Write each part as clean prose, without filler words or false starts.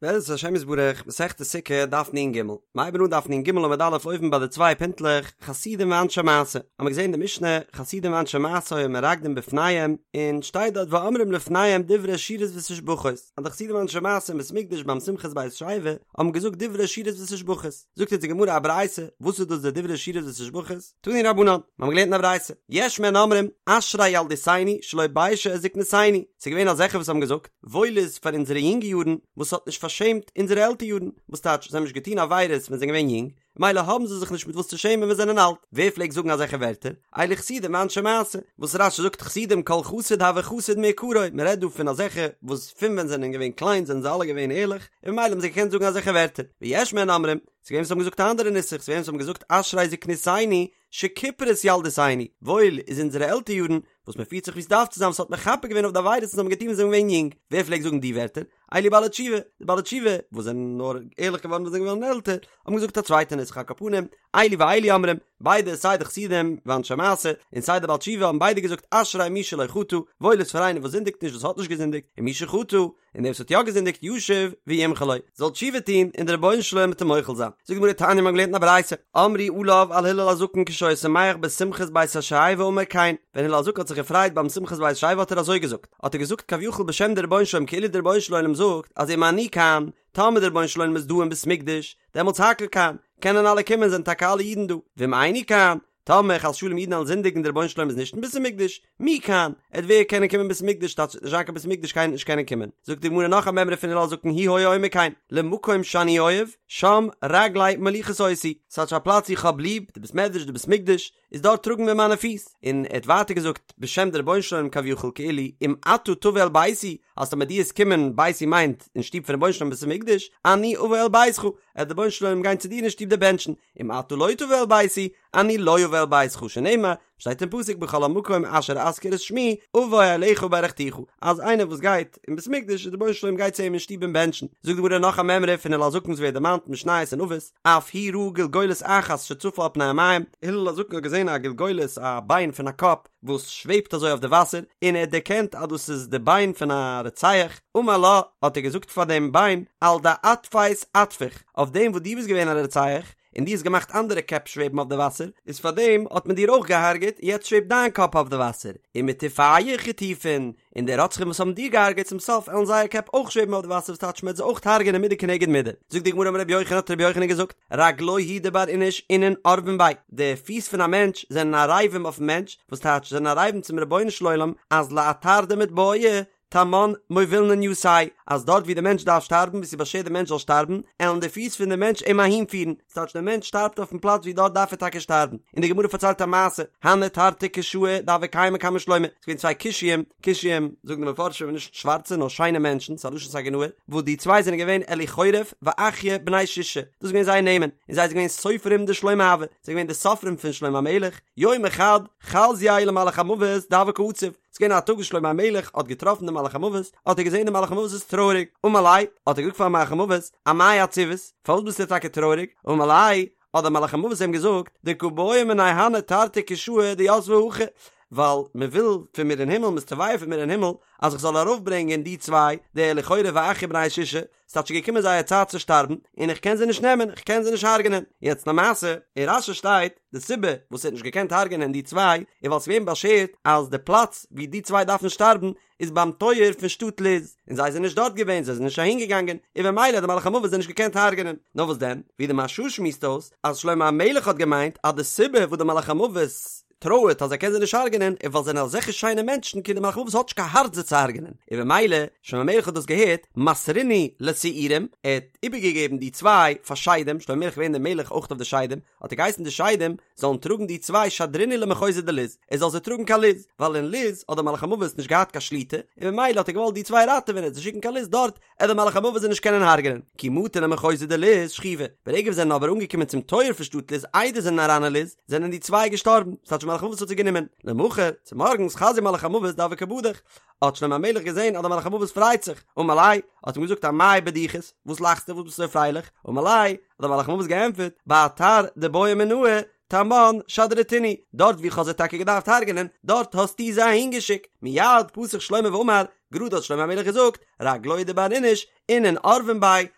בעזרת השם יתברך, מסכת סוכה, דף נ"ג. מ'הייבן אן דף נ"ג עמוד א' אויבן ביי די צוויי פינטלעך, חסידים ואנשי מעשה. האמיר געזען די משנה, חסידים ואנשי מעשה היו מרקדין בפניהם, און שטייט דארט ואומרים לפניהם דברי שירות ותשבחות, אז די חסידים ואנשי מעשה אין בית מקדש ביים שמחת בית השואבה האבן געזאגט דברי שירות ותשבחות. זאגט אונז די גמרא א ברייתא, וואס איז דאס די דברי שירות ותשבחות? תנו רבנן, מיר האבן געלערנט אין א ברייתא, יש מהן אומרים, אשרי ילדותנו שלא ביישה את זקנותנו, ס'איז געווען אזעלכע וואס האבן געזאגט, וואויל איז פאר אונזערע יונגע יארן וואס האט נישט פארשעמט אונזערע עלטער יארן, וואס טייטש זיי האבן נישט געטון עבירות ווען זיי זענען געווען יונג, מילא האבן זיי זיך נישט מיט וואס צו שעמען ווען זיי זענען אלט, ווער פלעגט זאגן אזעלכע ווערטער? אלו חסידים ואנשי מעשה, וואס רש"י זאגט חסידים כל חסיד הוי חסיד מעיקרא, מען רעדט דא פון אזעלכע וואס פון ווען זיי זענען געווען קליין זענען זיי אלע געווען ערליך, און ממילא האבן זיי געקענט זאגן אזעלכע ווערטער, ויש מהן אומרים, ס'איז געווען וואס האבן געזאגט א אנדערע נוסח, ס'איז געווען וואס האבן געזאגט אשרי זקנותנו שכיפרה את ילדותנו, וואויל איז אונזערע עלטער יארן, וואס מען פירט זיך ווי ס'דארף צו זיין, וואס האט מכפר געווען אויף די עבירות וואס זיי האבן געטון ווען זיי זענען געווען יונג, ווער פלעגט זאגן די ווערטער? אלו בעלי תשובה, די בעלי תשובה, וואס זענען נאר ערליך געווארן ווען זיי זענען געווארן עלטער, האבן געזאגט א צווייטע נוסח על כל פנים, אלו ואלו אומרים, ביידע סיי די חסידים ואנשי מעשה, און סיי די בעל תשובה האבן ביידע געזאגט אשרי מי שלא חטא, וואויל איז פאר איינער וואס זינדיגט נישט וואס האט נישט געזינדיגט, און מי שחטא, און דער וואס האט יא געזינדיגט ישוב וימחול לו, זאל תשובה טון און דער רבונו של עולם וועט אים מוחל זיין. זאגט די גמרא תניא מ'האט געלערנט אין א ברייתא, אמרו עליו על הלל הזקן כשהיה שמח בשמחת בית השואבה אמר כן, ווען הלל הזקן האט זיך געפרייט ביים שמחת בית השואבה האט ער אזוי געזאגט, האט ער געזאגט כביכול בשם דער רבונו של עולם כאילו דער רבונו של עולם זאגט אז אם אני כאן, טאמער דער רבונו של עולם איז דא אין בית מקדש, דעמאלטס הכל כאן, קענען אלע קומען זענען טאקע אלע אידן דא, ואם איני כאן, טאמער חס ושלום אידן וועלן זינדיגן דער רבונו של עולם איז נישט אין בית המקדש, מי כאן, עט ווער קענען קומען בית המקדש טייטש ס'וועט נישט זיין קיין בית המקדש קיינער נישט קענען קומען, זאגט די גמרא נאך א מימרא פון הלל הזקן הוא היה אומר כן, למקום שאני אוהב, שם רגלי מוליכות אותי, ס'טייטש א פלאץ איך האב ליב, די בית מדרש די בית מקדש, איז דארט טראגן מיר מיינע פיס, און ער האט ווייטער געזאגט בשם די רבונו של עולם כביכול כאילו אם אתה תבוא אל ביתי, אז טאמער דו עסט קומען, ביתי מיינט אין שטוב פון רבונו של עולם בית המקדש, אני אבוא אל ביתך, עט די רבונו של עולם גיין צו דיר אין שטוב דיר בענטשן, אם אתה לא תבוא אל ביתי, אני לא אבוא אל ביתך, שנאמר, שטייט אין פסוק בכל המקום אשר אזכיר את שמי, אבוא אליך וברכתיך, אז איינער וואס גייט אין בית מקדש, דער רבונו של עולם גייט צו אים אין שטוב אים בענטשן. זאגט די גמרא נאך א מימרא פון הלל הזקן וואס ווערט דערמאנט אין משניות אין אבות, אף הוא ראה גולגולת אחת שצפה על פני המים, הלל הזקן האט געזען א גולגולת, א ביין פון א קאפ, וואס שוועבט אזוי אויף די וואסער, און ער האט דערקענט אז דאס איז די ביין פון א רוצח, אמר לה, האט ער געזאגט פאר דעם ביין, על דאטפת אטפוך, אויף דעם וואס דו ביסט געווען א רוצח, און דו האסט געמאכט אנדערע קעפ שוועבן אויף די וואסער, איז פאר דעם האט מען דיר אויך געהארגעט, און יעצט שוועבט דיין קאפ אויף די וואסער, ומטיפיך יטופון, און די רוצחים וואס האבן דיר געהארגעט צום סוף עלן זייער קעפ אויך שוועבן אויף די וואסער וואס טייטש מ'עט זיי אויך הרג'ענען מידה כנגד מידה. זאגט די גמרא אמר רבי יוחנן האט רבי יוחנן געזאגט, רגלוהי הוא דבר איניש אינון ערבין ביה, די פיס פון א מענטש זענען ערבים אויפן מענטש, וואס טייטש זענען ערבים צום רבונו של עולם אז לאתר דמתבעי תמן מובילנן יתיה, אז דארט ווי די מענטש דארף שטארבן ווי ס'איז באשערט די מענטש זאל שטארבן, עלן די פיס פון די מענטש אים אהין פירן, ס'טייטש דער מענטש שטארבט אויפן פלאץ ווי דארט דארף ער טאקע שטארבן, און די גמרא פארציילט א מעשה, הנהו תרתי כושאי דהוו קיימי קמי שלמה, ס'איז געווען צוויי כושיים, כושיים זאגן די מפרשים נישט שווארצע נאר שיינע מענטשן, ס'איז א לשון סגי נהור, וואס די צוויי זענען געווען אליחורף ואחיה בני שושא, דאס איז געווען זייער נעמען, און זיי זענען געווען סופרים דשלמה הוו, זיי זענען געווען די סופרים פון שלמה המלך, יומא חד חזייה למלאך המוות דהוה קא עציב, ס'איז געווען א טאג וואס שלמה המלך האט געטראפן דעם מלאך המוות, האט ער געזען דער מלאך המוות איז טרויעריג, אמר ליה, האט ער געזאגט פארן מלאך המוות, אמאי עציבת, פארוואס ביסטו טאקע טרויעריג, אמר ליה, האט דער מלאך המוות אים געזאגט, דקא בעו מינאי הני תרתי כושאי דיתבי הכא, ווייל מען וויל פון מיר אין הימל, מען איז תובע פון מיר אין הימל, אז איך זאל ארויפברענגען די צוויי, די אליחורף ואחיה בני שושא, ס'האט שוין געקומען זייער צייט צו שטארבן, און איך קען זיי נישט נעמען, איך קען זיי נישט הרג'נען. יעצט למעשה, אין רש"י שטייט, די סיבה וואס ער האט נישט געקענט הרג'נען די צוויי, איז ווייל ס'איז געווען באשערט אז די פלאץ ווי די צוויי דארפן שטארבן, איז ביים טויער פון שטאט לוז, און זיי זענען נישט דארט געווען, זיי זענען נישט אהין געגאנגען, און במילא האט די מלאך המוות זיי נישט געקענט הרג'נען. נאר וואס דען, ווי די מהרש"א שמועסט אויס, אז שלמה המלך האט געמיינט אז די סיבה וואס די מלאך המוות טרויערט אז ער קען זיי נישט הרג'נען איז ווייל זיי זענען אזעלכע שיינע מענטשן כאילו די מלאך המוות האט נישט קיין הארץ זיי צו הרג'נען, און במילא שלמה המלך האט דאס געהערט, מסרינהו לשעירים, ער האט איבערגעגעבן די צוויי פאר שדים, שלמה המלך איז געווען דער מלך אויך אויף די שדים, האט ער געהייסן די שדים זאלן טראגן די צוויי שדרינהו למחוזא דלוז, ער זאל זיי טראגן קיין לוז, ווייל אין לוז האט דער מלאך המוות נישט געהאט קיין שליטה, און במילא האט ער געוואלט די צוויי ראטעווען און זיי שיקן קיין לוז דארט עט דער מלאך המוות זיי נישט קענען הרג'נען, כי מטו למחוזא דלוז שכיבו, ברגע וואס זענען אבער אנגעקומען צום טויער פון שטאט לוז איידער זענען אריין אין לוז, זענען די צוויי געשטארבן, ס'טייטש מלאך המוות האט זיי גענומען, למחר, צומארגנס חזייה מלאך המוות דהוה קא בדיח, האט שלמה המלך געזען אז דער מלאך המוות פרייט זיך, אמר ליה, האט אים געזאגט אמאי בדיחת, וואס לאכסטו וואס ביסטו אזוי פרייליך, אמר ליה, האט דער מלאך המוות געענטפערט, באתר דבעו מינאי, תמן שדרתינהו, דארט וואו איך האב זיי טאקע געדארפט הרג'נען, דארט האסטו זיי אהינגעשיקט, מיד פתח שלמה ואמר, גראד האט שלמה המלך געזאגט, רגלוהי דבר איניש, אינון ערבין ביה,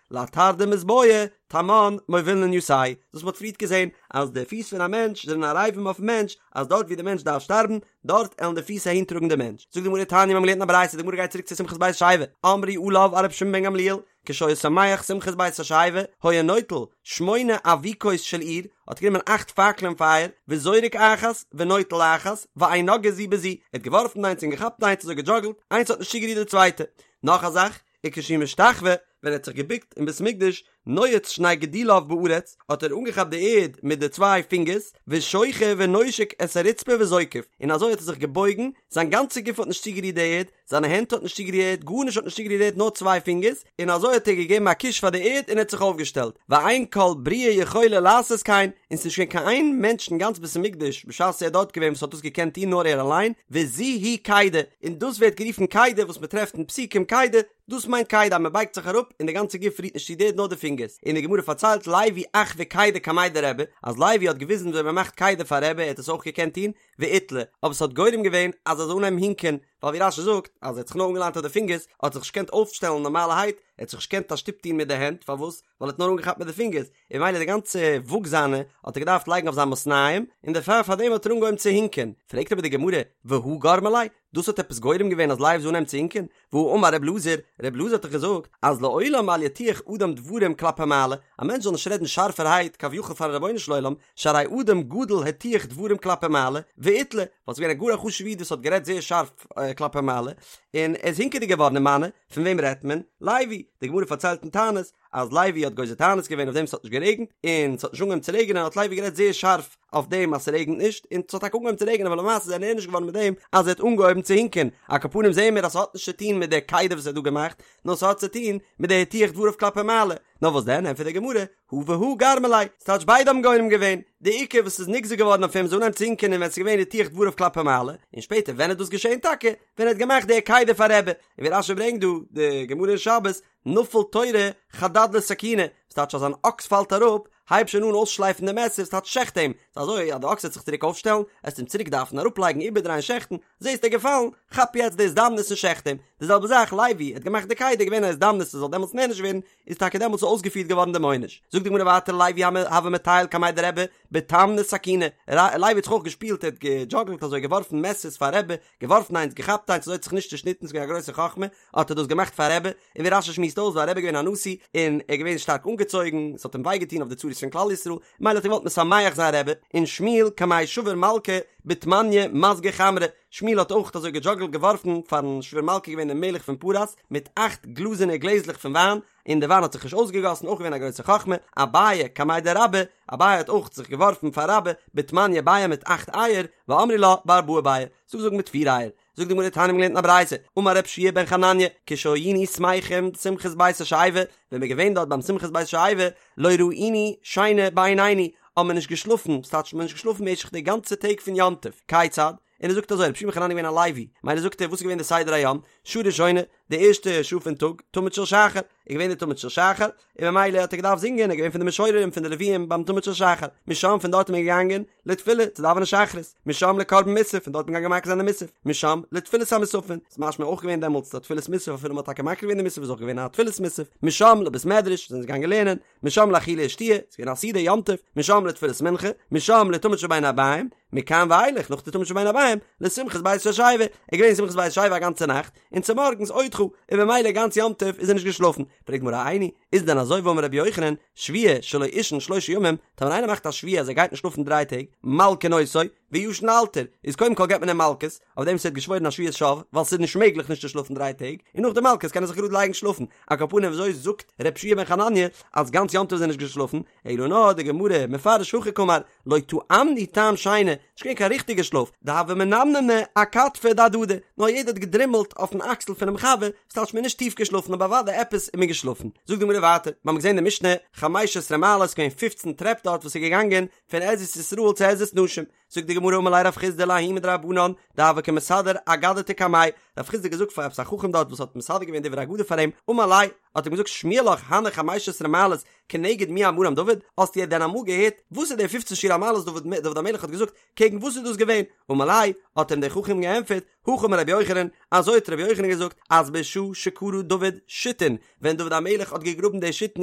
לאתר דמתבעי, תמן מובילנן יתיה. דאס מ'האט פריערט געזען, אז די פיס פון א מענטש זענען ערבים אויפן מענטש, אז דארט ווי די מענטש דארף שטארבן, דארט עלן די פיס אהין טראגן די מענטש. זאגט די גמרא תניא מיר האבן געלערנט אין א ברייתא, די גמרא גייט צוריק צו שמחת בית השואבה, אמרו עליו על רבי שמעון בן גמליאל, כשהיה שמח שמחת בית השואבה, היה נוטל שמונה אבוקות של אור, האט גענומען אכט פאקלען פייער, וזורק אחת, ונוטל אחת, ואין נוגעות זו בזו, ער האט געווארפן איינס און געכאפט איינס אזוי געדזשאגלט, איינס האט נישט צוגערירט די צווייטע. נאך א זאך, וכשהוא משתחווה, ווען ער האט זיך געבוקט אין בית המקדש, נועץ שני גדיליו בארץ, האט ער אנגעכאפט די ערד מיט די צוויי פינגערס, ושוחה ונושק את הרצפה וזוקף, און אזוי האט ער זיך געבויגן, זיין גאנצע גוף האט נישט צוגערירט די ערד, זיינע הענט האט נישט צוגערירט די ערד, גארנישט האט נישט צוגערירט די ערד נאר צוויי פינגערס, און אזוי האט ער געגעבן א קוש פאר די ערד און ער האט זיך אויפגעשטעלט, ואין כל בריה יכולה לעשות כן, און ס'איז נישט געווען קיין איין מענטש אין גאנץ בית המקדש בשעת ער איז דארט געווען וואס האט דאס געקענט טון נאר ער אליין, וזו היא קידה, און דאס ווערט גערופן קידה וואס מען טרעפט אין פסוקים קידה, דאס מיינט קידה אז מען בייגט זיך אראפ און די גאנצע גוף רירט נישט צו די ערד נאר די פינגערס, און די גמרא פארציילט לוי אחוי קידה קמיה דרבי, אז לוי האט געוויזן וויאזוי מען מאכט קידה פאר רבי ער האט עס אויך געקענט טון, ואיתלי, אבער ס'האט גורם געווען אז ער זאל אנהייבן הינקען, ווייל ווי רש"י זאגט אז ער האט זיך נאר אנגעליינט אויף די פינגערס, האט זיך נישט געקענט אויפשטעלן נארמאלערהייט, ער האט זיך נישט געקענט א שטופ טון מיט די הענט, פארוואס? ווייל ער האט נאר אנגעכאפט מיט די פינגערס, און ממילא די גאנצע וואג זיינע האט ער געדארפט לייגן אויף זיין מתניים, און דערפאר פאר דעם האט ער אנגעהויבן צו הינקען. פרעגט אבער די גמרא, והא גרמא ליה? דאס האט עפעס גורם געווען אז לוי זאל אנהייבן צו הינקען? והא אמר ר' אלעזר, ר' אלעזר האט דאך געזאגט אז לעולם אל יטיח אדם דברים כלפי מעלה, א מענטש זאל נישט רעדן שארפערהייט כביכול פארן רבונו של עולם, שהרי אדם גדול הטיח דברים כלפי מעלה, ואיתלי, ווייל ס'איז געווען א גאר א חשוב'ע איד וואס האט גערעדט זייער שארף כלפי מעלה, און ער איז הינקעדיג געווארן ומנו, פון וועם רעדט מען? לוי, די גמרא פארציילט אין תענית, אז לוי האט גוזר תענית געווען אויף דעם ס'האט נישט גערעגנט, און ס'האט נישט אנגעהויבן צו רעגענען האט לוי גערעדט זייער שארף אויף דעם אז ס'רעגנט נישט, און ס'האט טאקע אנגעהויבן צו רעגענען אבער למעשה איז ער נענש געווארן מיט דעם אז ער האט אנגעהויבן צו הינקען, על כל פנים זעהן מיר אז ס'האט נישט צו טוהן מיט די קידה וואס ער האט דא געמאכט, נאר ס'האט צו טוהן מיט די הטיח דבריו כלפי מעלה, נאר וואס דען ענטפערט די גמרא, הא והא גרמא ליה, ס'טייטש ביידע האבן גורם געווען, די עיקר וואס איז נגזר געווארן אויף אים זאל אנהייבן צו הינקען איז ווען ס'איז געווען הטיח דבריו כלפי מעלה, און שפעטער ווען איז דאס געשעהן טאקע? ווען ער האט געמאכט די קידה פאר רבי, און ווי רש"י ברענגט דא די גמרא אין שבת, נפל תורא חדד לסכינא, וואס טייטש אז אן אקס פאלט אראפ, הייב שוין אן אויסשלייפן די מעסער, ס'טייטש שעכט אים, ס'איז אזוי אז די אקס וועט זיך צוריק אויפשטעלן, עסט אים צוריק דארפן אראפלייגן איבערדרייען שעכטן, זעסט ער געפאלן, כאפ יעצט די הזדמנות און שעכט אים, די זעלבע זאך לוי האט געמאכט די קידה געווען א הזדמנות ער זאל דעמאלטס נענש ווערן, איז טאקע דעמאלטס אויסגעפירט געווארן דעם עונש. זאגט די גמרא ווייטער לוי הוה מטייל קמיה דרבי בתמני סכיני, לוי האט זיך אויך געשפילט ער האט געדזשאגלט אזוי געווארפן מעסערס פאר רבי, געווארפן איינס געכאפט איינס אזוי האט זיך נישט צושניטן ס'איז געווען א גרויסע חכמה האט ער דאס געמאכט פאר רבי, און ווי רש"י שמועסט אויס ווייל רבי איז געווען א נשיא און ער איז געווען שטארק אנגעצויגן ס'האט אים וויי געטון אויף די צרות פון כלל ישראל מילא האט ער געוואלט משמח זיין רבי, און שמואל קמי שבור מלכא בתמניא מזגי חמרא, שמואל האט אויך אזוי געדזשאגלט געווארפן פארן שבור מלכא געווען דער מלך פון פרס מיט אכט גלאזענע גלעזלעך פון וויין, און די וויין האט זיך נישט אויסגעגאסן אויך געווען א גרויסע חכמה, אביי קמיה דרבה, אביי האט אויך זיך געווארפן פאר רבה בתמניא ביעי מיט אכט אייער, ואמרי לה בארבעה ביעי, ס'דא וואס זאגן מיט פיר אייער, זאגט די גמרא תניא מ'האט געלערנט אין א ברייתא, אמר רב שיע בן חנניה, כשהיינו שמחים שמחת בית השואבה, ווען מ'איז געווען דארט ביים שמחת בית השואבה, לא ראינו שינה בעינינו, האבן מיר נישט געשלאפן, ס'טייטש מ'האט נישט געשלאפן משך די גאנצע טעג פון יום טוב, כיצד? און ער זאגט אזוי, רבי יהושע בן חנניה איז געווען א לוי, מילא זאגט ער וואס איז געווען די סדר היום, שעה ראשונה, די ערשטע שעה פון טאג, תמיד של שחר, איז געווען די תמיד של שחר, און ממילא האט ער געדארפט זינגען, ער איז געווען פון די משוררים פון די לוויים ביים תמיד של שחר, משם פון דארט איז מען געגאנגען לתפילה צו דאווענען שחרית, משם לקרבן מוסף, פון דארט איז מען געגאנגען מקריב זיין די מוסף, משם לתפילת המוספין, ס'איז משמע אויך געווען דעמאלטס א תפילת מוסף אפילו מ'האט טאקע מקריב געווען די מוסף איז אויך געווען א תפילת מוסף, משם לבית מדרש, זענען זיי געגאנגען לערנען, משם לאכילה ושתיה, ס'איז געווען א סעודה יום טוב, משם לתפילת מנחה, משם לתמיד של בין הערביים, מכאן ואילך נאך די תמיד של בין הערביים, לשמחת בית השואבה, ער איז געווען שמחת בית השואבה א גאנצע נאכט, און צומארגנס עוד ח, און במילא גאנץ יום טוב איז ער נישט געשלאפן, פרעגט די גמרא איני, איז דען אזוי והאמר רבי יוחנן, שבועה שלא אישן שלושה ימים, טאמער איינער מאכט א שבועה אז ער גייט נישט שלאפן דריי טעג, מלקין אותו, וישן לאלתר, איז קודם כל געבט מען אים מלקות, אויף דעם וואס ער האט געשוואוירן א שבועת שוא, ווייל ס'איז נישט מעגליך נישט צו שלאפן דריי טעג, און נאך די מלקות קען ער זיך גראד לייגן שלאפן, על כל פנים וויאזוי זאגט ר' יהושע בן חנניה אז גאנץ יום טוב איז ער נישט געשלאפן, אלא נאר די גמרא מפרש הכי קאמר, לא טעמנו טעם שינה, נישט געווען קיין ריכטיגע שלאף, דהוה מנמנמי אכתפא דהדדי, נאר יעדער האט געדרימלט אויפן אקסל פונעם חבר, ס'טייטש מ'איז נישט טיף געשלאפן אבער אוודאי עפעס איז מען געשלאפן. זאגט די גמרא ווייטער, מיר האבן געזען די משנה, חמש עשרה מעלות, געווען פופצן טרעפ דארט וואס איז געגאנגען פון עזרת ישראל צו עזרת נשים, זאגט די גמרא אמר ליה רב חסדא לההוא מדרבנן דהוה קא מסדר אגדתא קמיה, רב חסדא האט געזאגט פאר עפעס א חכם דארט וואס האט מסדר געווען דברי אגדה פאר אים, אמר ליה, האט אים געזאגט שמיע לך הני חמש עשרה מעלות כנגד מי אמרם דוד, האסטו דען אמאל געהערט וואס איז די פופצן שיר המעלות דוד דוד המלך האט געזאגט, קעגן וואס איז דאס געווען? אמר ליה, האט אים דער חכם געענטפערט, הכי אמר רבי יוחנן, אזוי האט רבי יוחנן געזאגט, אז בשעה שכרה דוד שיתין, ווען דוד המלך האט געגראבן די שיתין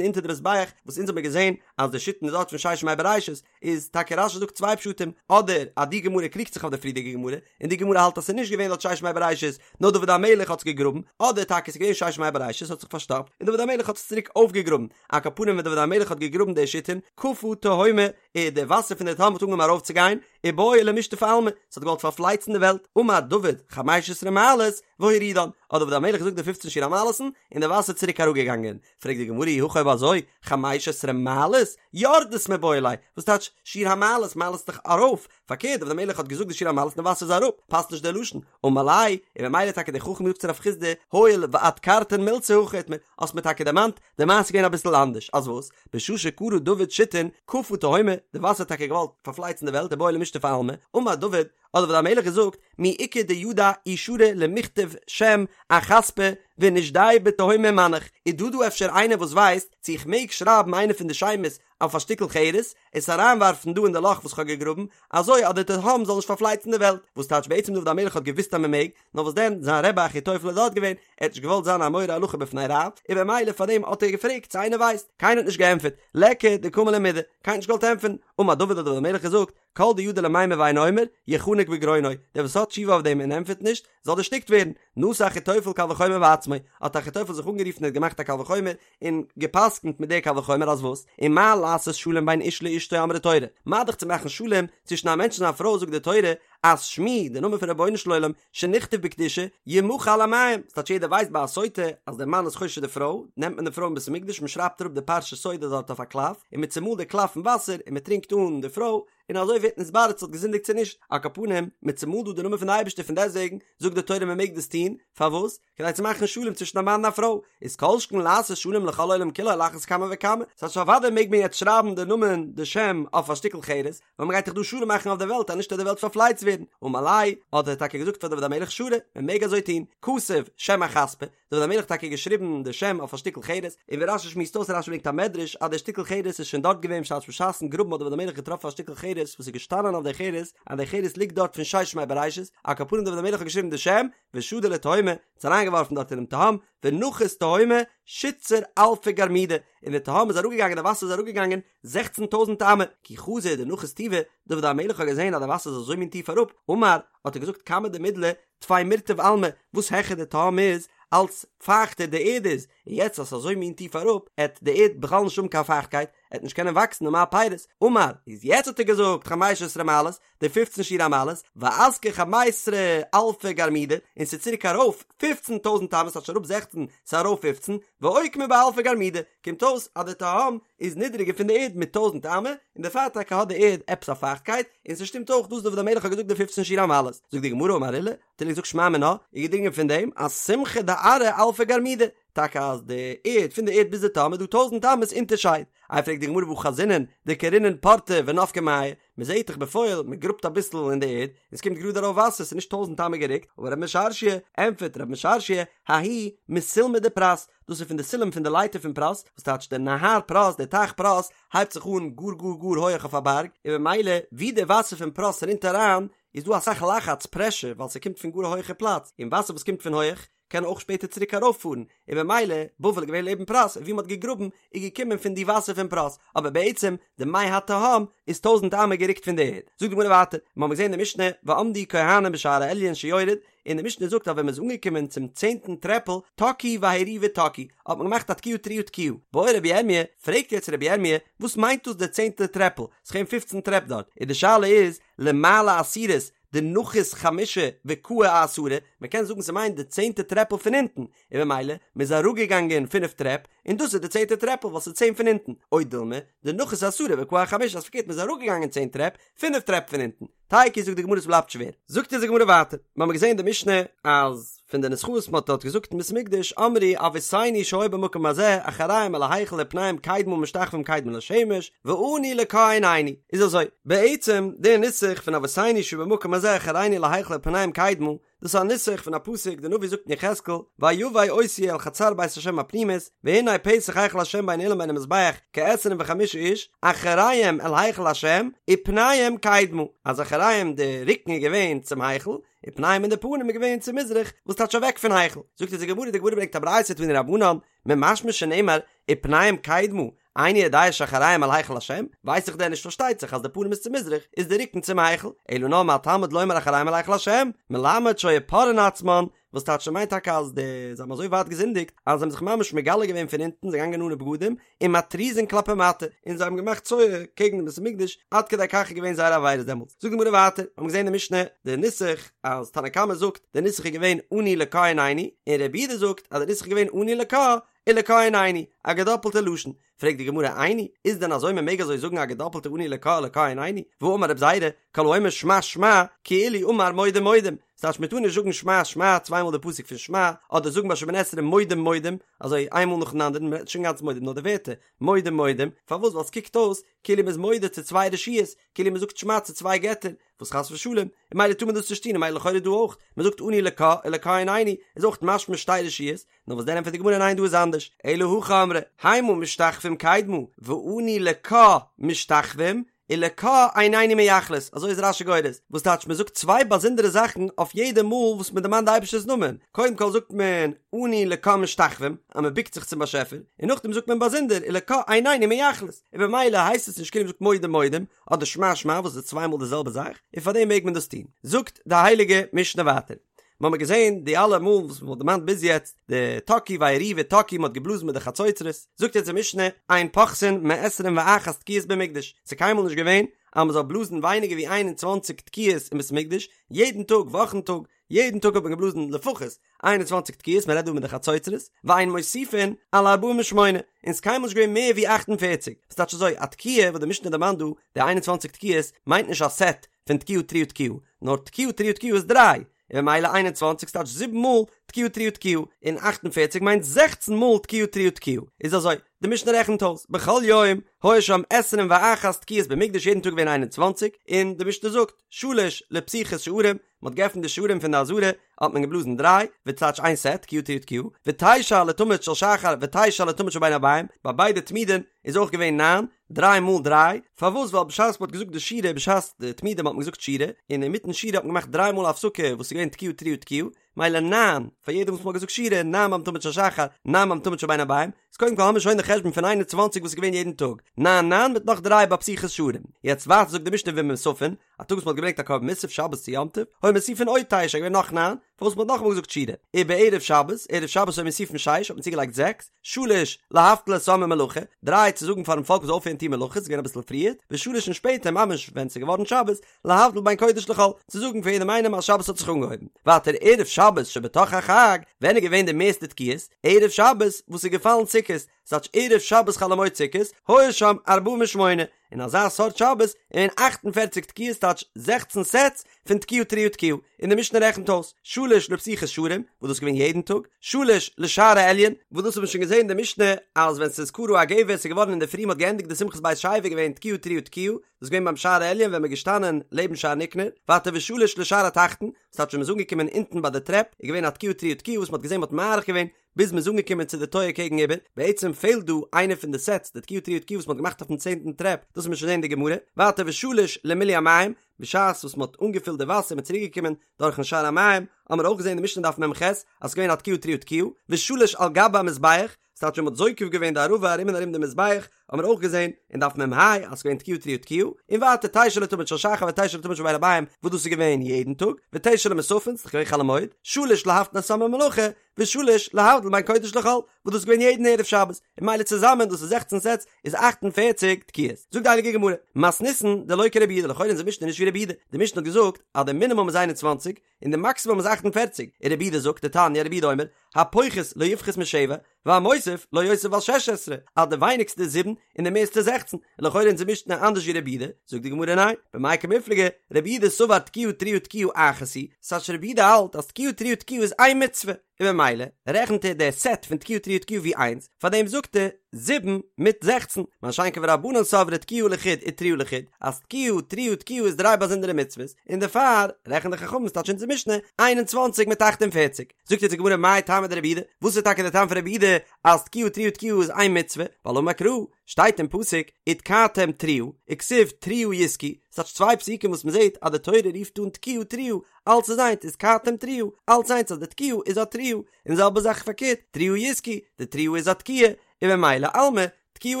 אונטער די מזבח, וואס אונז האבן מיר געזען אז די שיתין איז דארט פון ששת ימי בראשית, איז טאקע רש"י זאגט צוויי פשטים, אדער אז די גמרא קריגט זיך אויף די פריערדיגע גמרא, און די גמרא האלט אז ס'איז נישט געווען דארט ששת ימי בראשית, נאר דוד המלך האט עס געגראבן, אדער טאקע ס'איז געווען ששת ימי בראשית האט זיך פארשטאפט, און דוד המלך האט עס צוריק אויפגעגראבן, על כל פנים ווען דוד המלך האט געגראבן די שיתין, קפא תהומא, איז די וואסער פון די תהום האט אנגעהויבן ארויפצוגיין, ובעא למשטפא עלמא, ס'האט געוואלט פארפלייצן די וועלט, אמר דוד, חמש עשרה מעלות, והורידן, האט דוד המלך געזאגט די פופצן שיר המעלות'ן, און די וואסער איז צוריק אראפגעגאנגען, פרעגט די גמרא אי הכי אויב אזוי, חמש עשרה מעלות, יורדות מיבעי ליה, וואס טייטש שיר המעלות, מעלות איז דאך ארויף, פארקערט דוד המלך האט געזאגט די שיר המעלות און די וואסער איז אראפ, פאסט נישט דער לשון, אמר ליה, און ממילא טאקע דער חכם זאגט צו רב חסדא, הואיל ואדכרתן מילתא הכי איתמר, האסט מיר טאקע דערמאנט, די מעשה איז געווען אביסל אנדערש, אז וואס? בשעה שכרה דוד שיתין, קפא תהומא, די וואסער האט טאקע געוואלט פארפלייצן די וועלט ובעא למשטפא עלמא, אמר דוד, האט דוד המלך געזאגט, מי איכא דידע אי שרי למיכתב שם אחספא ונשדייה בתהומא ומנח, איז דא דא אפשר איינער וואס ווייסט צו איך מעג שרייבן איינע פון די שמות אויף א שטיקל חרס, עס אריינווארפן דא אין די לאך וואס כ'האב געגראבן, אזוי אז די תהום זאל נישט פארפלייצן די וועלט, וואס טייטש בעצם דוד המלך האט געוואוסט אז מען מעג, נאר וואס דען, זיין רבי אחיתופל איז דארט געווען, ער האט נישט געוואלט זיין א מורה הלכה בפני רב, און במילא פאר דעם האט ער געפרעגט צו איינער ווייסט, קיינער האט נישט געענטפערט, ליכא דקאמר ליה מידי, קיינער האט נישט געוואלט ענטפערן, אמר דוד האט דוד המלך געזאגט, כל דידע למימר ואינו אומר, יחנק בגרונו, דער וואס האט תשובה אויף דעם און ענטפערט נישט, זאל דערשטיקט ווערן, נשא אחיתופל קל וחומר בעצמו, האט אחיתופל זיך אנגערופן און האט געמאכט א קל וחומר, און גע'פסק'נט מיט די קל וחומר אז וואס? ומה לעשות שלום בין איש לאשתו אמרה תורה, מה דאך צו מאכן שלום צווישן א מענטש און זיין פרוי זאגט די תורה אז שמי, די נאמען פון רבונו של עולם, שנכתב בקדושה, ימחה על המים, ס'טייטש יעדער ווייסט ביי א סוטה אז דער מאן איז חושד די פרוי, נעמט מען די פרוי אין בית המקדש מען שרייבט אראפ די פרשת סוטה דארט אויף א קלף, און מען צומאלט די קלף אין וואסער און מען טרינקט אן די פרוי, און אזוי ווערט נתברר צו האט געזינדיגט צו נישט, על כל פנים, מען צומאלט דא די נאמען פון די אייבערשטער פון דעסטוועגן זאגט די תורה מען מעג דאס טון, פארוואס? כדי צו מאכן שלום צווישן א מאן און א פרוי, איז כל שכן לעשות שלום לכל העולם כולו על אחת כמה וכמה, ס'הייסט אוודאי מעג מען יעצט שרייבן די נאמען די שם אויף א שטיקל חרס, ווייל מ'גייט דאך דא שלום מאכן אויף די וועלט אז נישט וועט די וועלט פארפלייצט ווערן, אמר ליה, האט ער טאקע געזאגט פאר דוד המלך שרי, מען מעג אזוי טון, כתב שם אחספא, דוד המלך האט טאקע געשריבן די שם אויף א שטיקל חרס, און ווי רש"י שמועסט אויס רש"י ברענגט א מדרש אז דער שטיקל חרס איז שוין דארט געווען בשעת בשעת'ן גראבן האט דוד המלך געטראפן א שטיקל חרס וואס איז געשטאנען אויף די חרס אז די חרס ליגט דארט פון ששת ימי בראשית, על כל פנים דוד המלך האט געשריבן די שם, ושדי לתהומא, עס אריינגעווארפן דארט אינעם תהום, ונחית תהומא שיתסר אלפי גרמידי, און די תהום איז אראפגעגאנגען די וואסער איז אראפגעגאנגען זעכצן טויזנט אמה, כי חזא דנחית טובא, דוד המלך האט געזען אז די וואסער איז אזוי מין טיף אראפ, אמר, האט ער געזאגט כמה דמידלי טפי מירטב עלמא, וואס העכער די תהום איז, אלץ פייכטער די ערד איז, און יעצט אז ס'איז אזוי מין טיף אראפ, עט די ערד בכלל נישט האבן קיין פייכטקייט, עט נישט קענען וואקסן ומה פירות, אמר, איז יעצט האט ער געזאגט חמש עשרה מעלות, די פופצן שיר המעלות, ואסקי חמיסר אלפי גרמידי, און ס'איז צוריק ארויף פופצן טויזנט אמות, ס'טייטש אראפ זעכצן, ס'איז ארויף פופצן, ואוקמה באלפי גרמידי, קומט אויס אז די תהום איז נידריגער פון די ערד מיט טויזנט אמה, און דערפאר טאקע האט די ערד עפעס א פייכטקייט, און ס'שטימט אויך דאס דוד המלך האט געזאגט די פופצן שיר המעלות. זאגט די גמרא אמר עולא, האט עולא געזאגט שמע מינה, איז געדרינגען פון דעם אז סומכא דארעא אלפא גרמידי, טאקע אז די ערד פון די ערד ביז די תהום איז דא טויזנט אמות אונטערשייד. איי פרעגט די גמרא והא חזינן דכרינן פורתא ונפקי מיא, מען זעט דאך בפועל מען גראבט אביסל אין די ערד און עס קומט גראד ארויף וואסער ס'איז נישט טויזנט אמה גערוקט, אמר רב משרשיא, ענטפערט רב משרשיא, ההוא מסולמא דפרת, דאס איז פון די סולם פון די לייטער פון פרת, וואס טייטש דער נהר פרת, דער טייך פרת, הייבט זיך אן גאר גאר גאר הויעך אויף א בארג, און במילא ווי די וואסער פון פרת רינט אריין איז דא אסאך לחץ, פרעשור, ווייל ס'קומט פון גאר א הויעכע פלאץ, און וואסער וואס קומט פון הויעך קען אויך שפעטער צוריק ארויפפארן, און במילא, בבל איז געווען לעבן פרת, און ווי מ'האט געגראבן איז געקומען פון די וואסער פון פרת, אבער בעצם די מי התהום איז טויזנט אמה גערוקט פון די ערד. זאגט די גמרא ווייטער, מ'האמיר געזען אין די משנה, ועמדו כהנים בשער העליון שיורד, און די משנה זאגט אז ווען מ'איז אנגעקומען צום צענטן טרעפל, תקעו והריעו ותקעו, האט מען געמאכט א תקיעה תרועה תקיעה. בעי רבי ירמיה, פרעגט יעצט רבי ירמיה, וואס מיינט דאס די צענטע טרעפל? ס'איז געווען פופצן טרעפ דארט, און די שאלה איז, למעלה עשירית, דנחית חמשה וקאי אעשרה, מען קען זאגן ס'מיינט די צענטע טרעפל פון אונטן, און במילא מ'איז אראפגעגאנגען פינף טרעפ, און דאס איז די צענטע טרעפל ווייל ס'איז צען פון אונטן, או דילמא, דנחית עשרה וקאי אחמשה אז פארקערט מ'איז אראפגעגאנגען צען טרעפ, פינף טרעפ פון אונטן. תיקו זאגט די גמרא ס'בלייבט שווער. זאגט אונז די גמרא ווייטער, מ'האמיר געזען אין די משנה אז פון די נוסחאות מ'האט דארט געזאגט אין בית המקדש אמרו אבותינו שהיו במקום הזה אחוריהם אל ההיכל ופניהם קדמה משתחווים קדמה לשמש ואנו לקה עינינו איז אזוי בעצם די נוסח פון אבותינו שהיו במקום הזה אחורינו אל ההיכל ופניהם קדמה. דאס איז א נוסח פון א פסוק, די נביא זאגט אין יחזקאל, ויבא אותי אל חצר בית השם הפנימית, והנה פתח היכל השם בין האולם ובין המזבח כעשרים וחמשה איש, אחוריהם אל היכל השם, ופניהם קדמה, אז אחוריהם די רוקן איז געווען צום היכל, ופניהם און די פנים איז געווען צו מזרח, וואס טייטש אוועק פון היכל. זאגט אונז די גמרא, די גמרא ברענגט א ברייתא תנו רבנן, ממשמע שנאמר, ופניהם קדמה, איני יודע שאחוריהם אל היכל השם, ווייס איך דען נישט פארשטייט זיך אז די פנים איז צו מזרח, איז די רוקן צום היכל, אלא נאר מה תלמוד לומר אחוריהם אל היכל השם, מלמד שהיו פורעין עצמן, וואס טייטש ס'מיינט טאקע אז די זיי האבן אזוי ווייט געזינדיגט אז זיי האבן זיך ממש מגלה געווען פון אונטן זיי געגאנגען אנע בגדים און מתריזין כלפי מטה און זיי האבן געמאכט צואה קעגן דעם בית המקדש עד כדי כך איז געווען זייער עבירות דעמאלטס זאגט די גמרא ווייטער האבן געזען אין די משנה די נוסח אז תנא קמא זאגט די נוסח איז געווען אנו לקה עינינו און רבי יהודה זאגט אז די נוסח איז געווען אנו לקה ולקה עינינו א געדאפלטע לשון פרעגט די גמרא איני, איז דען אזוי מען מעג אזוי זאגן א געדאפלטע אנו לקה ולקה עינינו, והאמר רב זירא, כל האומר שמע שמע, כאילו אמר מודים מודים, ס'טייטש מען טאר נישט זאגן שמע שמע צוויי מאל די פסוק פון שמע, אדער זאגן ביי שמונה עשרה מודים מודים, אזוי איין מאל נאכן אנדערן, מען רעדט נישט אינגאנצן מודים נאר די ווערטער, מודים מודים, פארוואס ווייל ס'קוקט אויס כאילו מ'איז מודה צו צוויי רשויות, כאילו מ'זאגט שמע צו צוויי געטער, וואס חס ושלום, און ממילא טאר מען דאס נישט טון, און ממילא לכאורה דא אויך, מ'זאגט אנו לקה ולקה עינינו, איז אויך משמע שתי רשויות, נאר וואס דען ענטפערט די גמרא ניין דא איז אנדערש, אלא הכי אמרי, המה משתחווים קדמה, ואנו לקה משתחווים, ולקה עינינו מייחלות, אזוי איז רש"י גורס, וואס טייטש מען זאגט צוויי באזונדערע זאכן אויף יעדע מאל וואס מען דערמאנט די אייבערשטער'ס נאמען, קודם כל זאגט מען אנו לקה משתחווים, אז מען בוקט זיך צום באשעפער, און נאכדעם זאגט מען באזונדער ולקה עינינו מייחלות, און במילא הייסט עס נישט כאילו מען זאגט מודים מודים, אדער שמע שמע וואס איז צוויי מאל די זעלבע זאך, און פארדעם מעג מען דאס טון. זאגט די הייליגע משנה ווייטער. מיר האבן געזען די אלע מאל וואס מ'האט דערמאנט ביז יעצט, די תקעו ויריעו ותקעו מ'האט געבלאזן מיט די חצוצרות, זאגט יעצט די משנה, אין פוחתין מעשרים ואחת תקיעות במקדש, ס'איז קיינמאל נישט געווען אז מ'זאל בלאזן ווייניגער ווי איין און צוואנציג תקיעות אין בית המקדש, יעדן טאג, וואכן טאג, יעדן טאג האט מען געבלאזן לפחות 21 תקיעות, מ'רעדט דא מיט די חצוצרות, ואין מוסיפין על ארבעים ושמונה, און ס'איז קיינמאל נישט געווען מער ווי 48, ס'טייטש אזוי, א תקיעה וואס די משנה דערמאנט דא, די 21 תקיעות, מיינט נישט א סעט פון תקיעה תרועה תקיעה, נאר תקיעה תרועה תקיעה איז דריי, און ממילא 21 ס'טייטש זיבן מאל תקיעה תרועה תקיעה, און 48 מיינט זעכצן מאל תקיעה תרועה תקיעה, איז אזוי, די משנה רעכנט אויס, בכל יום היו שם עשרים ואחת תקיעות במקדש יעדן טאג געווען 21, און די משנה זאגט, שלש לפתיחת שערים, מען האט געעפנט די שערים פון די עזרה, האט מען געבלאזן דריי, וואס טייטש איין סעט, תקיעה תרועה תקיעה, ותשע לתמיד של שחר ותשע לתמיד של בין הערבים, ביי ביידע תמידין איז אויך געווען ניין, דריי מאל דריי, פארוואס ווייל בשעת מען האט געזאגט די שירה בשעת די תמידים האט מען געזאגט שירה, און אינמיטן שירה האט מען געמאכט דריי מאל הפסקה וואס איז געווען תקיעה תרועה תקיעה, מילא ניין פאר יעדע וואס מען האט געזאגט שירה, ניין ביים תמיד של שחר, ניין ביים תמיד של בין הערבים, איז קודם כל האמיר שוין די חשבון פון 21 וואס איז געווען יעדן טאג, ניין ניין מיט נאך דריי ביי פתיחת שערים, יעצט ווייטער זאגט די משנה ובמוספין, א טאג וואס מען האט געברענגט א קרבן מוסף שבת צו יום טוב, היו מוסיפין עוד תשע, געווען נאך ניין, פארוואס מען האט נאכאמאל געזאגט שירה, ובערב שבת, ערב שבת היו מוסיפין שש, האט מען צוגעלייגט זעקס, שלש, להבטיל את העם ממלאכה, דריי צו זאגן פארן פאלק מ'זאל אויפהערן טון מלאכות, ס'איז געווען אביסל פריער, ושלש און שפעטער ממש ווען ס'איז געווארן שבת, להבדיל בין קודש לחול, צו זאגן פאר יעדעם איינעם אז שבת האט זיך אנגעהויבן. ווייטער ערב שבת שבתוך החג, ווען איז געווען די מערסטע תקיעות? ערב שבת וואס איז געפאלן סוכות, ס'טייטש ערב שבת חול המועד סוכות, היו שם ארבעים ושמונה, אין אזא סארט שבת איז געווען 48 תקיעות טייטש זעכצן סעטס פון תקיעה תרועה תקיעה, און די משנה רעכנט אויס, שלש לפתיחת שערים, וואס דאס איז געווען יעדן טאג, שלש לשער העליון, וואס דאס האט מען שוין געזען אין די משנה אז ווען ס'איז כרע הגבס איז געווארן אינדערפרי מ'האט געענדיגט די שמחת בית השואבה איז געווען תקיעה תרועה תקיעה, דאס איז געווען ביים שער העליון ווען מ'איז געשטאנען לעבן שער ניקנור, ווייטער ושלש לשער התחתון, ס'טייטש ווען מ'איז אנגעקומען אונטן ביי די טרעפ איז געווען א תקיעה תרועה תקיעה וואס מ'האט געזען מ'האט מאריך געווען ביז מ'איז אנגעקומען צו די טויער קעגן איבער, בעצם פעלט דא איינע פון די סעטס, די תקיעה תרועה תקיעה וואס מ'האט געמאכט אויפן צענטן טרעפ, דאס וועט מען שוין זען אין די גמרא, ווייטער ושלש למילוי המים, בשעת וואס מ'האט אנגעפילט די וואסער מ'איז צוריק געקומען דורכן שער המים, האמער אויך געזען אין די משנה דף מ"ח אז ס'איז געווען א תקיעה תרועה תקיעה, ושלש על גבי המזבח, ס'טייטש ווען מ'האט זוקף געווען די ערבה ארום און ארום די מזבח, האמער אויך געזען אין דף מ"ה אז ס'איז געווען תקיעה תרועה תקיעה, און ווייטער תשע לתמיד של שחר ותשע לתמיד של בין הערבים, וואס דאס איז געווען יעדן טאג, ותשע למוספין, ס'איז דאך געווען חול המועד, שלש להבטיל את העם ממלאכה, ושלש להבדיל בין קודש לחול, וואס דאס איז געווען יעדן ערב שבת, און ממילא צוזאמען דאס איז זעכצן סעטס איז 48 תקיעות. זאגט די הייליגע גמרא, מתניתין דלא כרבי יהודה, לכאורה אונזער משנה איז נישט ווי רבי יהודה, די משנה האט געזאגט אז די מינימום איז 21 און די מאקסימום איז 48, און רבי יהודה זאגט, דתניא רבי יהודה אומר, הפוחת לא יפחות משבע, והמוסיף לא יוסיף על שש עשרה, אז די ווייניגסטע איז זיבן און די מערסטע זעכצן, און לכאורה אונזער משנה אנדערש ווי רבי יהודה, זאגט די גמרא ניין, במאי קמיפלגי, רבי יהודה סבר תקיעה תרועה תקיעה אחת היא, ס'טייטש רבי יהודה האלט אז תקיעה תרועה תקיעה איז איין מצוה, און ממילא רעכנט ער די סעט פון תקיעה תרועה תקיעה ווי איינס, פארדעם זאגט ער. זיבן מיט 16, מה שאין כן ורבנן סברי תקיעה לחוד ותרועה לחוד, אז תקיעה, תרועה, תקיעה איז דריי באזונדערע מצוות, און דערפאר רעכנט די חכמים ס'טייטש אונזער משנה 21 מיט 48. זאגט יעצט די גמרא מאי טעמא דרבי יהודה, וואס איז טאקע די טעם פון רבי יהודה אז תקיעה תרועה תקיעה איז איין מצוה, ווייל אמר קרא, שטייט אין פסוק ותקעתם תרועה, וכתיב תרועה יתקעו, ס'טייטש צוויי פסוקים וואס מ'זעט אז די תורה רופט אן תקיעה תרועה, אלץ איז איינס ותקעתם תרועה, אלץ איינס אז די תקיעה איז א תרועה, און זעלבע זאך פארקערט, תרועה יתקעו, די תרועה איז א תקיעה, און ממילא אלמא, תקיעה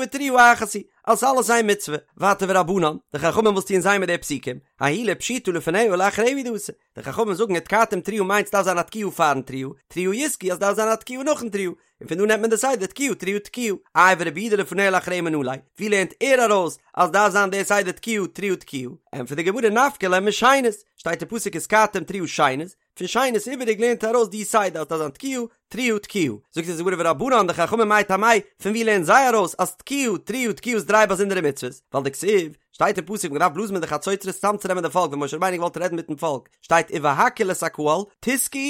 ותרועה אחת היא, אז ס'איז אלעס איין מצוה. ווייטער ורבנן, די חכמים וואס טוען זיי מיט די פסוקים, ההוא לפשיטא לפניה ולאחריה הוא דאתא, די חכמים זאגן ותקעתם תרועה מיינט ס'דארף זיין א תקיעה פארן תרועה, תרועה יתקעו אז ס'דארף זיין א תקיעה נאכן תרועה, און פון דא נעמט מען די סדר תקיעה תרועה תקיעה. איי ורבי יהודה לפניה ולאחריה מנא ליה, ווי לערנט ער ארויס אז דארף זיין די סדר תקיעה תרועה תקיעה? ענטפערט די גמרא נפקא ליה משנית, שטייט אין פסוק ותקעתם תרועה שנית, פון שנית איבעריג לערנט ער ארויס די סדר אז דארף זיין תקיעה תרועה תקיעה. זאגט אונז די גמרא ורבנן די חכמים מאי טעמייהו, פון ווי לערנען זיי ארויס אז תקיעה תרועה תקיעה איז דריי באזונדערע מצוות? ווייל דכתיב, שטייט אין פסוק מ'דארף בלאזן מיט די חצוצרות צאמצונעמען די פאלק ווען משה רבינו געוואלט רעדן מיטן פאלק שטייט ובהקהיל את הקהל תתקעו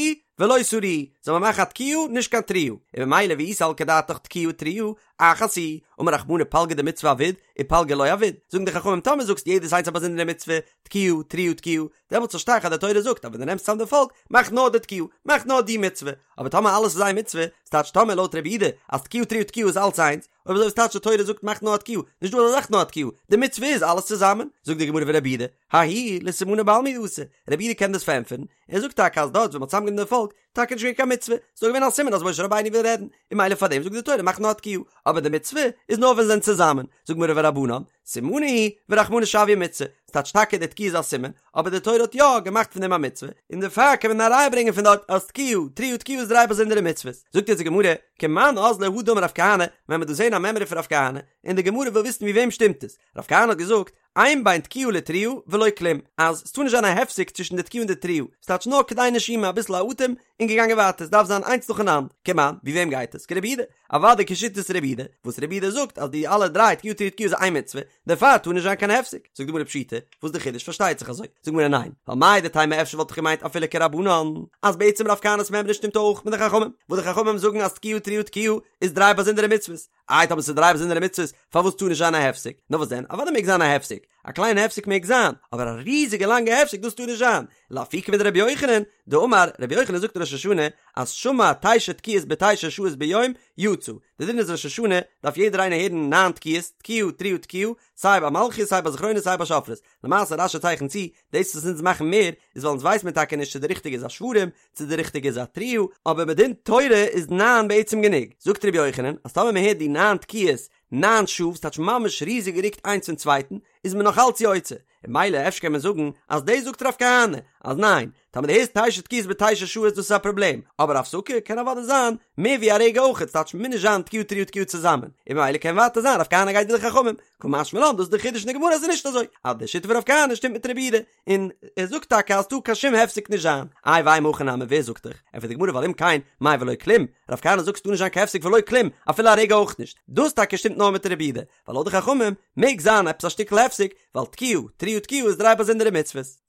ולא תריעו זאל מען מאכן א תקיעה נישט קיין תרועה און ממילא ואי סלקא דעתך תקיעה תרועה אחת היא אמר רחמנא פלגא דמצוה עביד ופלגא לא עביד זאגן די חכמים טאמער זאגסט יעדעס איינס א באזונדערע מצוה תקיעה תרועה תקיעה דעמאלטס פארשטיי איך אז די תורה זאגט אז ווען דו נעמסט צאם די פאלק מאך נאר די תקיעה מאך נאר די מצוה אבער טאמער אלעס איז איין מצוה ס'טייטש טאמער לויט רבי יהודה אז תקיעה תרועה תקיעה איז אלץ איינס אויב אזוי וואס טייטש די תורה זאגט מאך נאר א תקיעה, נישט דא אזא זאך נאר א תקיעה, די מצוה איז אלעס צוזאמען, זאגט די גמרא ורבי יהודה, ההוא לסימנא בעלמא הוא דאתא, רבי יהודה קען דאס פארענטפערן, ער זאגט טאקע אז דארט ווען מ'האט צוזאמגענומען די פאלק, טאקע נישט געווען קיין מצוה, ס'איז נאר געווען א סימן אז משה רבינו וויל רעדן, און ממילא פארדעם זאגט די תורה מאך נאר א תקיעה, אבער די מצוה איז נאר ווען זיי זענען צוזאמען, זאגט גמרא ורבנן, סימנא הוא ורחמנא שויה מצוה, ס'טייטש טאקע די תקיעה איז א סימן, אבער די תורה האט יא געמאכט פון דעם א מצוה, און דערפאר קען מען א ראיה ברענגען פון דארט אז תקיעה, תרועה תקיעה איז דריי באזונדערע מצוות. זאגט יעצט די גמרא, כמאן אזלא הא דאמר רב כהנא, ווען מ'וועט דא זען א מימרא פון רב כהנא, און די גמרא וויל וויסן ווי וועם שטימט עס, רב כהנא האט געזאגט, אין בין תקיעה לתרועה ולא כלום, אז ס'טאר נישט זיין א הפסק צווישן די תקיעה און די תרועה, ס'טייטש נאר כדי נשימה אביסל א אטעם, און געגאנגען ווייטער, ס'דארף זיין איינס נאכאנאנד, כמאן, ווי וועם גייט עס? כרבי יהודה, אוודאי כשיטת רבי יהודה, וואס רבי יהודה זאגט אז די אלע דריי תקיעה תרועה תקיעה איז איין מצוה, דערפאר טאר נישט זיין קיין הפסק, זאגט די גמרא פשיטא, וואס די חידוש פארשטייט זיך אזוי, זאגט די גמרא ניין, ווייל מהו דתימא אפשר וואלט איך געמיינט אפילו כרבנן, אז בעצם רב כהנא'ס מימרא שטימט אויך מיט די חכמים, וואס די חכמים זאגן אז תקיעה תרועה תקיעה איז דריי באזונדערע מצוות, איי טאמער ס'איז דריי באזונדערע מצוות פארוואס טאר נישט זיין א הפסק, נאר וואס דען אוודאי מעג זיין א הפסק, א קליינע הפסק מעג זיין, אבער א ריזיגע לאנגע הפסק דאס טאר נישט זיין, לאפוקי מדרבי יוחנן, דאמר, רבי יוחנן זאגט אין ראש השנה אז שמע תשע תקיעות בתשע שעות ביום, יצא, די דין איז ראש השנה דארף יעדער איינער הערן ניין תקיעות, תקיעה תרועה תקיעה, סיי ביי מלכיות סיי ביי זכרונות סיי ביי שופרות, למעשה רש"י צייכנט צו, דאס וואס אונז מאכן מער, איז ווייל אונז ווייס מיר טאקע נישט צו די ריכטיגע איז א שברים, צו די ריכטיגע איז א תרועה, אבער מדין תורה איז ניין בעצם גענוג, זאגט רבי יוחנן אז טאמער מען הערט די ניין תקיעות ניין שעה, ס'טייטש ממש ריזיג גערוקט איינס פון צווייטן, איז מען נאך אלץ יוצא, און ממילא אפשר קען מען זאגן אז דאס זאגט רב כהנא אז ניין, טאמער דו הערסט תשע תקיעות בתשע שעות דאס איז א פראבלעם, אבער הפסקה קען אוודאי זיין מער ווי א רגע אויכעט, ס'טייטש מוז נישט זיין תקיעה תרועה תקיעה צוזאמען, און ממילא קען ווייטער זיין רב כהנא גייט ווי די חכמים, קא משמע לן דאס איז די חידוש אין די גמרא אז ס'איז נישט אזוי, אז די שיטה פון רב כהנא שטימט מיט רבי יהודה, און ער זאגט טאקע אז ס'טאר קיין שום הפסק נישט זיין, איי ואימא הכי נמי ווער זאגט דיך? ענטפערט די גמרא ווייל אם כן, מאי ולא כלום, רב כהנא זאגט ס'טאר נישט זיין קיין הפסק ולא כלום, אפילו א רגע אויך נישט, דאס טאקע שטימט נאר מיט רבי יהודה, ווייל לויט די חכמים מעג זיין עפעס א שטיקל הפסק, ווייל תקיעה, תרועה תקיעה איז דריי באזונדערע מצוות.